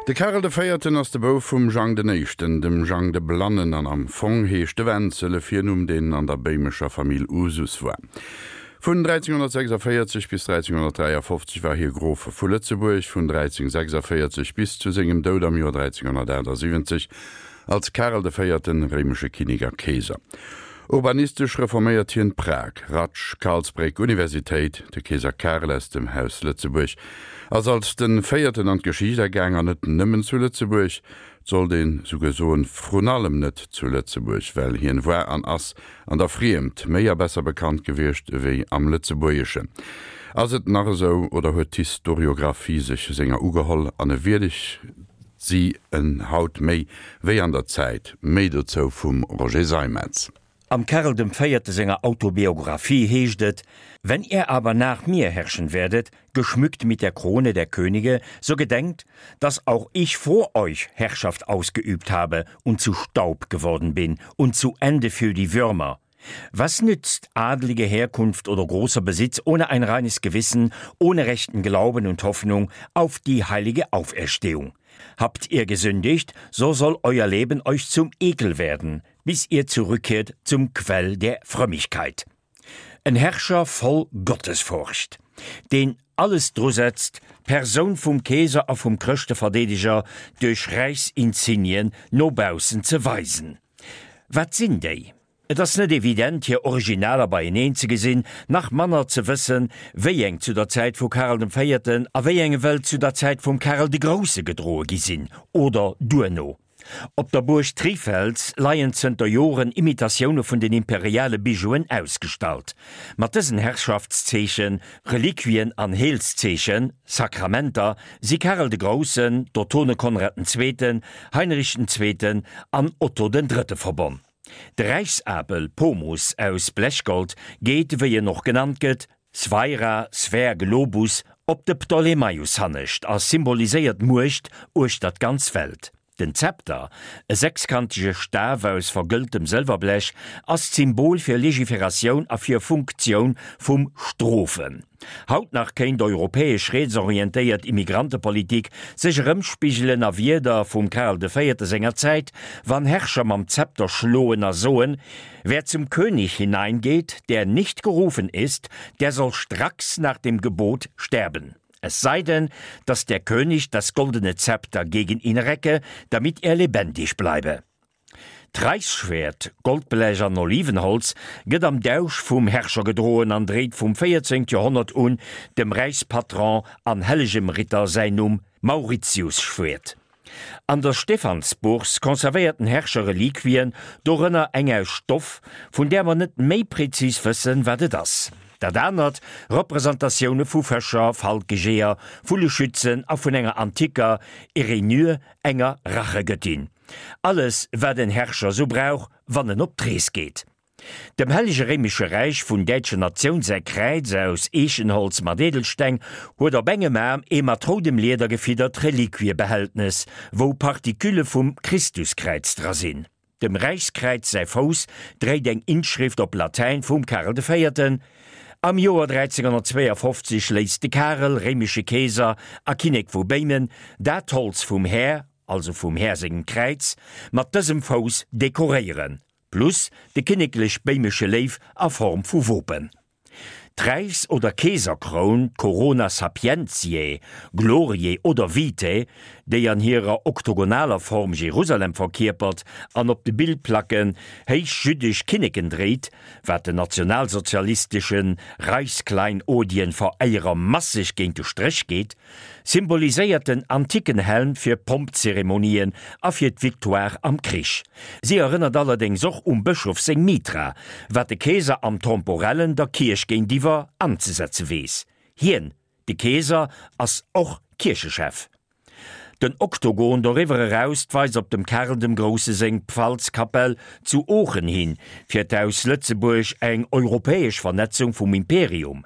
De Karel de Véierten ass de Bouf vum Jang den Éischten, dem Jang de Blannen, an am Fong heescht de Wenzel, e Virnumm deen an der béimescher Famill Usus war. Vun 1346 bis 1353 war hie Grof vu Lëtzebuerg, vun 1346 bis zu sengem Doud am Joer 1378 Als Karel de Véierten, réimesche Kinnek a Keeser. Urbanistesch reforméiert hien Prag, Ratsch, Karlsbréck, Universitéit. De Keeser Karel aus dem Haus Lëtzebuerg ass als de Véierten an d'Geschicht agaang, an net nëmmen zu Lëtzebuerg, 't sollt een souguer soen, vrun allem net zu Lëtzebuerg, well hien war an ass an der Friemd méi a besser bekannt gewiescht ewéi am Lëtzebuergeschen. Ass et nach esou, oder huet d'Historiographie sech senger ugeholl an e wierdegt si en haut méi wéi an der Zäit? Méi dozou vum Roger Seimetz. Am Karel dem Véierte senger Autobiographie heescht et, Wenn ihr aber nach mir herrschen werdet, geschmückt mit der Krone der Könige, so gedenkt, dass auch ich vor euch Herrschaft ausgeübt habe und zu Staub geworden bin und zu Ende für die Würmer. Was nützt adlige Herkunft oder großer Besitz ohne ein reines Gewissen, ohne rechten Glauben und Hoffnung auf die heilige Auferstehung? Habt ihr gesündigt, so soll euer Leben euch zum Ekel werden, bis ihr zurückkehrt zum Quell der Frömmigkeit. En Herrscher voll Gottesfurcht, deen alles drusetzt, d'Persoun vum Keeser a vum Chrëschteverdeedeger duerch Räichsinsignien no baussen ze weisen. Wat sinn déi? Et ass net evident, hir Originaler beieneen ze gesinn, nach manner ze wëssen, wéi eng zu der Zäit vu Karel dem Véierten a wéi eng ewell zu der Zäit vum Karel de Grousse gedroe gi sinn oder duerno. Op der Buerg Trifels leien zënter Joren Imitatioune vun den imperiale Bijouen ausgestallt. Mat dësen Herrschaftszeechen, Reliquien an Heelszeechen, Sakramenter, si Karel de Groussen, d'Ottone Konrad den Zweeten, Heinrich den Zweeten an Otto den Drëtte verbonn. De Räichsapel, Pomus, aus Blechgold geet, wéi en och genannt gëtt, Sphaira, Sphär, Globus, op de Ptolemaios hannescht a symboliséiert d'Muecht uechter d'ganz Welt. Den Zepter, e sechskantege Staf aus vergëlltem Sëlwerblech, ass d'Symbol fir Legiferatioun a fir Funktioun vum Strofen. Haut nach kéint europäesch rietsorientéiert Immigrantepolitik sech erëmspigelen a Wierder vum Karel de Véierte senger Zäit, wann Herrscher mam Zepter schloen a soen, Wer zum König hineingeht, der nicht gerufen ist, der soll stracks nach dem Gebot sterben. Es sei denn, dass der König das goldene Zepter gegen ihn recke, damit er lebendig bleibe. D'Räichsschwäert, Goldblech an Olivenholz, gëtt am Dausch vum Herrscher gedroen an dréit vum 14. Joerhonnert un dem Räichspatron an hellegem Ritter säin Numm, Mauritiusschwäert. An der Stephansbourse conservéiert den Herrscher Reliquien, dorënner eng aus Stoff, vun där mer net méi prezis wëssen, wat et ass. Dat anert Representatioune vu Fëscher, Falkejeeër, Vulleschützen a vun enger anticker Erinyr, enger Rachegëttin. Alles, wat en Herrscher sou brauch, wann en op d'Rees geet. Dem Hellege Réimesche Räich vun däitscher Natioun säi Kräiz aus Eechenholz mat Edelsteng huet op engem Aarm ee mat roudem Lieder gefiddert Reliquiebehältnes, wou Partikülle vum Christuskräiz dra sinn. Dem Räichskräiz säi Fouss dréit eng Inschrift op Latäin vum Karel de Véierten. Am Joer 1352 léisst de Karel, réimesche Keeser a Kinnek vu Béimen, dat Holz vum Här, also vum Här sengem Kräiz, mat dësem Fouss dekoréieren. Plus de kinneklech-béimesche Léiw a Form vu Wopen. D'Räichs oder Keeserkroun, d'Corona sapientiae, gloriae oder vitae, déi an hirer oktogonaler Form Jerusalem verkierpert an op de Bildplacken héich jüddesch Kinneken dréit, wat den nationalsozialistesche Reichskleinodien-Veréierer masseg géint de Stréch geet, Symboliséiert den antiken Helm fir Pompzeremonien a fir d'Victoire am Krich. Si erënnert allerdéngs och um Bëschof seng Mitra, wat de Keeser am Temporellen der Kierch géintiwwer anzesetze weess. Hien, de Keeser, ass och Kierchechef. Den Oktogon doriwwer eraus weist op dem Karl dem Grousse seng Pfalzkapell zu Oochen hin, fir d'Haus Lëtzebuerg eng europäesch Vernetzung vum Imperium.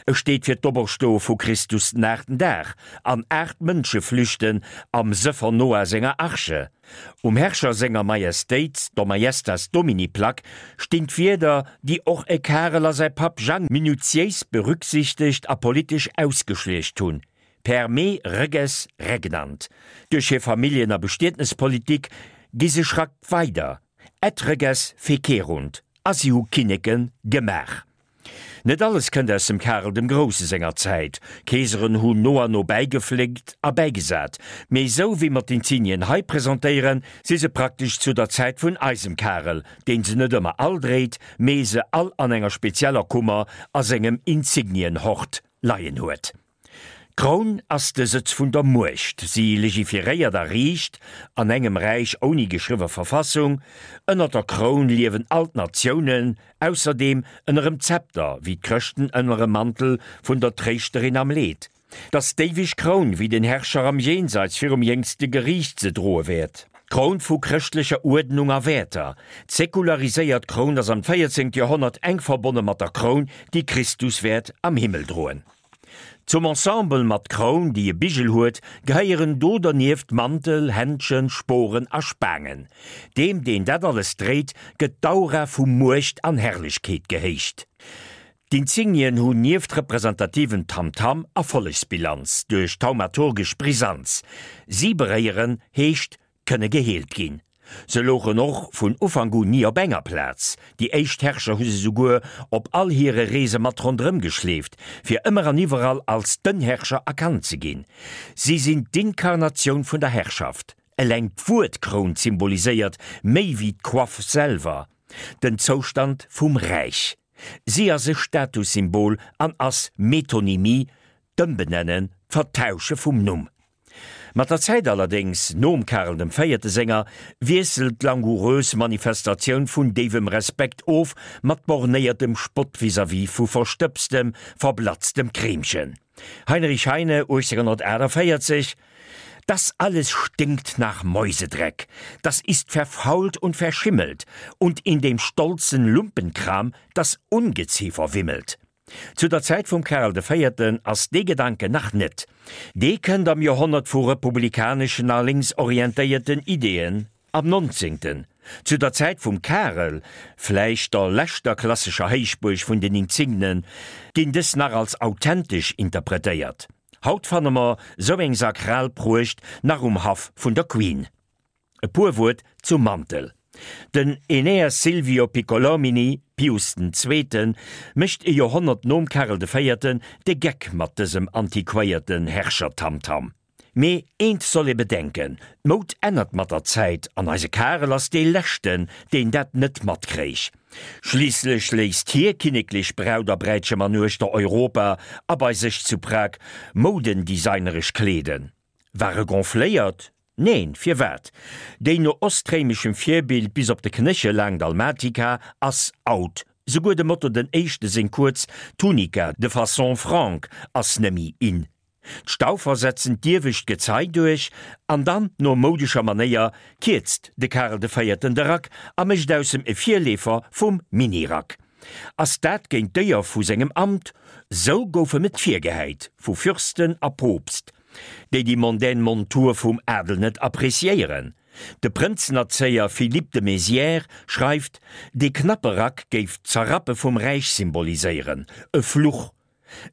E steet fir d'Operstoe vu Christus den aachten Dag an 8 Mënsche flüchten am Sëffer Noah senger Arche. Um Herrscher senger Majestéit, der Majestas Domini Plack, stinn d'Wierder, déi och e Karel a säi Papp Jang minutiéis berücksichtegt a politesch ausgeschleecht hunn. Per me reges regnant. Duerch hir Familljen a Bestietnespolitik gi se Schrack weider, Et reges fecerunt, a si hu Kinneke gemaach. Net alles kënnt aus dem Karel dem Grousse senger Zäit, Keeseren hunn no an no bäigefléckt a bäigesat, mee esou wéi mer d'Insignien hei presentéieren, si se praktesch zu der Zäit vun eisem Karel, deen se net ëmmer all dréit, mee se all an enger spezieller Kummer a sengem Insignienhort leien huet. D'Kroun ass de Sëtz vun der Muecht. Si legiferéiert a riicht an engem Räich ouni geschriwwe Verfassung. Ënner der Kroun liewen all d'Natiounen, ausserdeem ënnerem Zepter, wéi d'Chrëschten ënnerem Mantel vun der Tréischterin am Leed. 't ass d'éiweg Kroun, wéi den Herrscher am Jenseits virum jéngste Geriicht se droe wäert. D'Kroun vu chrëschtlecher Uerdnung a Wäerter. D'säkulariséiert Kroun ass am 14. Joerhonnert enk verbonne mat der Kroun, déi Christus wäert am Himmel droen. Zum Ensemble mat Kroun, déi e Bigel huet, gehéieren do dernieft Mantel, Händschen, Sporen a Spaangen. Deem, deen dat alles dréit, gëtt d'Aura vu Muecht an Herrlechkeet gehéicht. D'Insignien hunn nieft representativem Tamtam Erfollegsbilanz duerch thaumaturgesch Brisanz. Si beréieren, heescht kënne geheelt ginn. Se louchen och vun Ufank un ni op enger Plaz. Déi éischt Herrscher hu se souguer op all hire Reese mat ronderëm geschleeft, fir ëmmer an iwwerall als den Herrscher erkannt ze ginn. Si sinn d'Inkarnatioun vun der Herrschaft. Eleng d'Wuert Kroun symboliséiert méi wéi d'Coiffe selwer den Zoustand vum Räich. Si ass e Statussymbol an ass Metonymie, d'Ëmbenennen, d'Vertausche vum Numm. Mat der Zäit allerdéngs, nom Karel dem Véierte senger, wiesselt d'langoureuse Manifestatioun vun déiwem Respekt of mat bornéiertem Spott vis-à-vis vu verstëbstem, verblatztem Kreemchen. Heinrich Heine, 1848, Das alles stinkt nach Mäusedreck, das ist verfault und verschimmelt, und in dem stolzen Lumpenkram das Ungeziefer wimmelt. Zu der Zäit vum Karel de Véierten ass dee Gedanken nach net. Dee kënnt am Joerhonnert vu republikaneschen a lénksorientéierten Ideeën, am Nonzéngten, zu der Zäit vum Karel, vläicht der leschter klassescher Héichbuerg vun den Insignen, ginn dës nach als authentesch interpretéiert. Haut fanne mer sou eng sakral Pruecht nach um Haff vun der Queen. E puer Wuert zum Mantel. Den Aeneas Silvio Piccolomini, Pius den Zweeten, mécht e Joerhonnert nom Karel de Véierten de Geck mat dësem antiquéierten Herrschertamtam. Mee eent soll ee bedenken, D'Moud ännert mat der Zäit an eise Karel ass dee leschten, deen dat net matkréich. Schliisslech léisst hie kinneklech Braut a Bräitchem an uechter Europa a bei sech zu Prag moudendesigneresch kleeden. War e gonfléiert? Neen, firwat? Déi no ostréimeschem Virbild bis op de Knéchel laang Dalmatika ass out. Souguer dem Otto den Éischte seng kuerz Tunica de façon franque ass nemmi in. D'Staufer setzen d'iewescht Gezei duerch an dann, no moudescher Manéier, kierzt de Karel de Véierten de Rack a mécht aus em e Virleefer vum Minirack. Ass dat géint d'Éier vu sengem Amt? Sou gouf em et virgehäit vu Fürsten a Poopst. déi déi mondaine Montur vum Adel net appréciéieren. De Prënzenerzéier Philippe de Mézières schreift, dee knappe Rack géif d'Zerrappe vum Räich symboliséieren, e Fluch.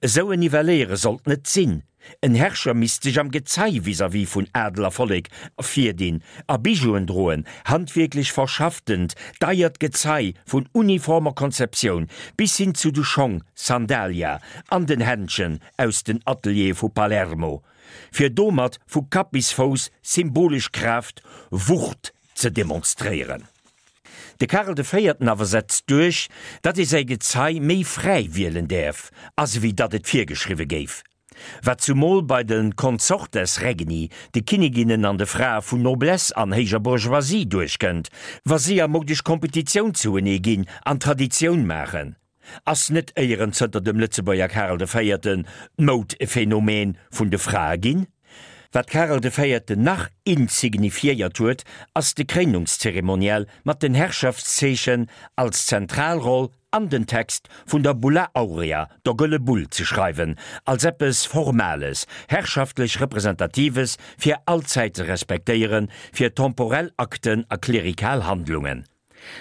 Esou en Nivelléiere sollt net sinn. En Herrscher misst sech am Gezei vis-à-vis vun Adel a Vollek ervirdinn a Bijouen droen, handwierklech verschafftent, deiert Gezei vun uniformer Konzeptioun bis hin zu de Schong, Sandalia, an den Händschen, aus den Ateliere vu Palermo, fir domat vu Kapp bis Fouss symbolesch Kraaft, Wucht ze demonstréieren. De Karel de Véierten awer setzt duerch, datt ee säi Gezei méi fräi wielen däerf, as ewéi datt et virgeschriwwe géif. Wat zumol bei de Consortes regni, de Kinniginnen an de Frae vun Noblesse an héijer Bourgeoisie duerchkënnt, wa si a modesch Kompetitioun zouenee ginn an Traditioun maachen. Ass net éieren zënter dem Lëtzebuerger Karel de Véierten d'Moud e Phänomen vun de Frae ginn? Wat Karel de Véierten nach insignifiéiert huet, ass de Kréinungszeremoniell mat den Herrschaftszeechen als zentral Roll an den Text vun der Bulla Aurea, der Gëlle Bull, ze schreiwen, als eppes Formales, herrschaftlech Representatives fir allzäit ze respektéieren, fir temporell Akten a klerikal Handlungen.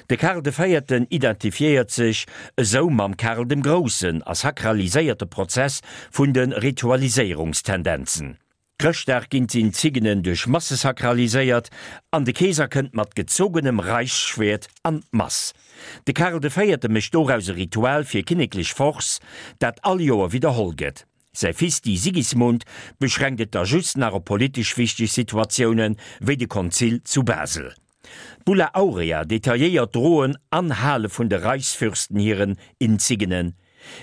De Karl de Véierten identifiéiert sech esou mam Karl dem Groussen a sakraliséiert de Prozess vun de Ritualiséierungstendenzen. Chrëschtdag ginn d'Insignen duerch Masse sakraliséiert an de Keeser kënnt mat gezogenem Reichsschwert an d'Mass. De Karl de Véierte mécht doraus e Ritual fir kinneklech Force, dat all Joer widderholl gëtt. Säi Fisti Sigismund beschränkt et da just nach op politesch wichteg Situatioune wéi de Konzil zu Basel. D'Bulla Aurea detailléiert d'Droen an Hale vun de Reichsfürsten hiren Insignen,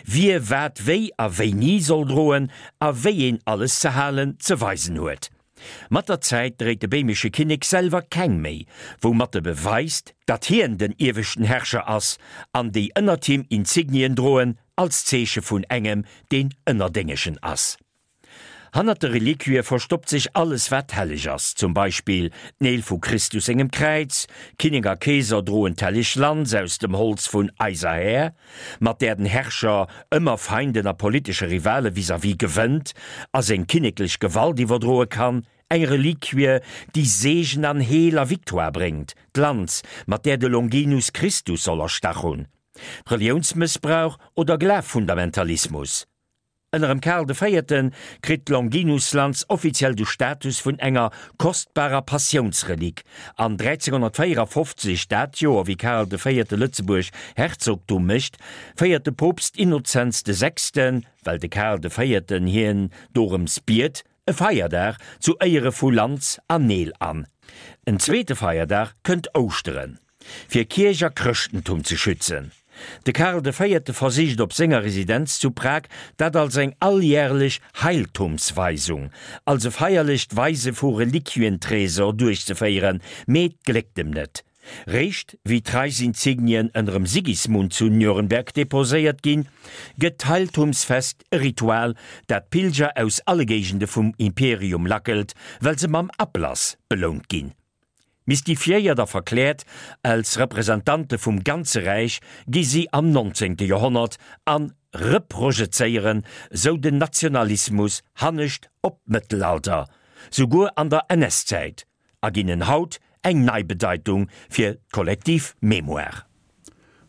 wie wat wéi a wéini soll droen a wéi een alles ze halen, ze weisen huet. Mat der Zäit dréit de béimesche Kinnek selwer keng méi, woumat e beweist, datt hien den ieweschten Herrscher ass an déi ënnert him Insignien droen als Zeeche vun engem, deen ënnerdéngegen ass. Hannert de Reliquië verstoppt sech alles wat helleg ass, zum Beispill d'Neel vu Christus sengem Kräiz, Kinnek a Keeser droen d'helleg Lanz aus dem Holz vun eiser Här, mat där den Herrscher ëmmer Feinden a politesche Rivale vis-à-vis gewënnt a seng kinneklech Gewalt iwwerdroe kann, eng Reliquie, déi Seegen an Heel a Victoire bréngt, d'Lanz, mat där de Longinus Christus soll erstach hunn. Reliounsmëssbrauch oder Glaffundamentalismus? Ënnerem Karl de Véierte kritt d'Longinuslanz offiziell de Status vun enger kostbarer Passiounsrelik an 1354, dat Joer wéi Karl de Véierte Lëtzebuerg Herzogtum mécht, féiert de Poopst Innozenz de Sechsten, well de Karl de Véierten hien dorëms biet, e Feierdag zu Éiere vu Lanz an Neel an. En zweete Feierdag kënnt Ouschteren. Fir Kierch a Chrëschtentum ze schützen. De Karl de Véierte versicht op senger Residenz zu Prag dat als eng alljärlech Heiltumsweisung, als e feierlecht Weise vu Reliquientresor duerchzeféieren, mee 't gléckt em net. Réischt wéi d'Reichsinsignien ënnerem Sigismund zu Nürnberg deposéiert ginn, gëtt d'Heiltumsfest e Ritual, dat Pilger aus alle Géigende vum Imperium lackelt, well se mam Ablass belount ginn. Mystifiéiert a verkläert als Representante vum ganze Räich gi si am 19. Joerhonnert a reprojezéieren sou den Nationalismus hannescht op d'Mëttelalter, souguer an der NS-Zäit, a ginn en haut eng nei Bedeitung fir d'kollektiv Mémoire.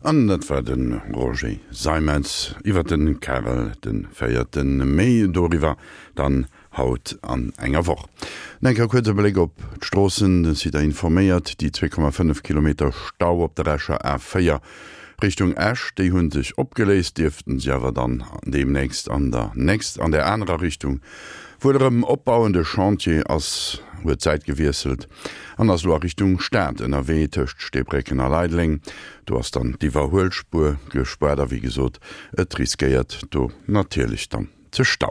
An dat war de Roger Seimetz iwwer de Karel de Véierten. Méi doriwwer dann haut an enger Woch. An enker kuerze Bléck op d'Stroossen, De Site informéiert, déi 2,5 Kilometer Stau op der Escher A4 Richtung Esch, déi hu sech opgeléist, dierften sech awer dann deemnächst an der nächst an der anerer Richtung wuel erëm opbauen. De Chantier ass huet d'Säit gewiesselt an ass elo a Richtung Stad ënnerwee tëscht Steebrécken a Leideleng. Do ass dann d'Iwwerhuelspuer gespaart a wéi gesot, et riskéiert do natierlech dann ze stauen.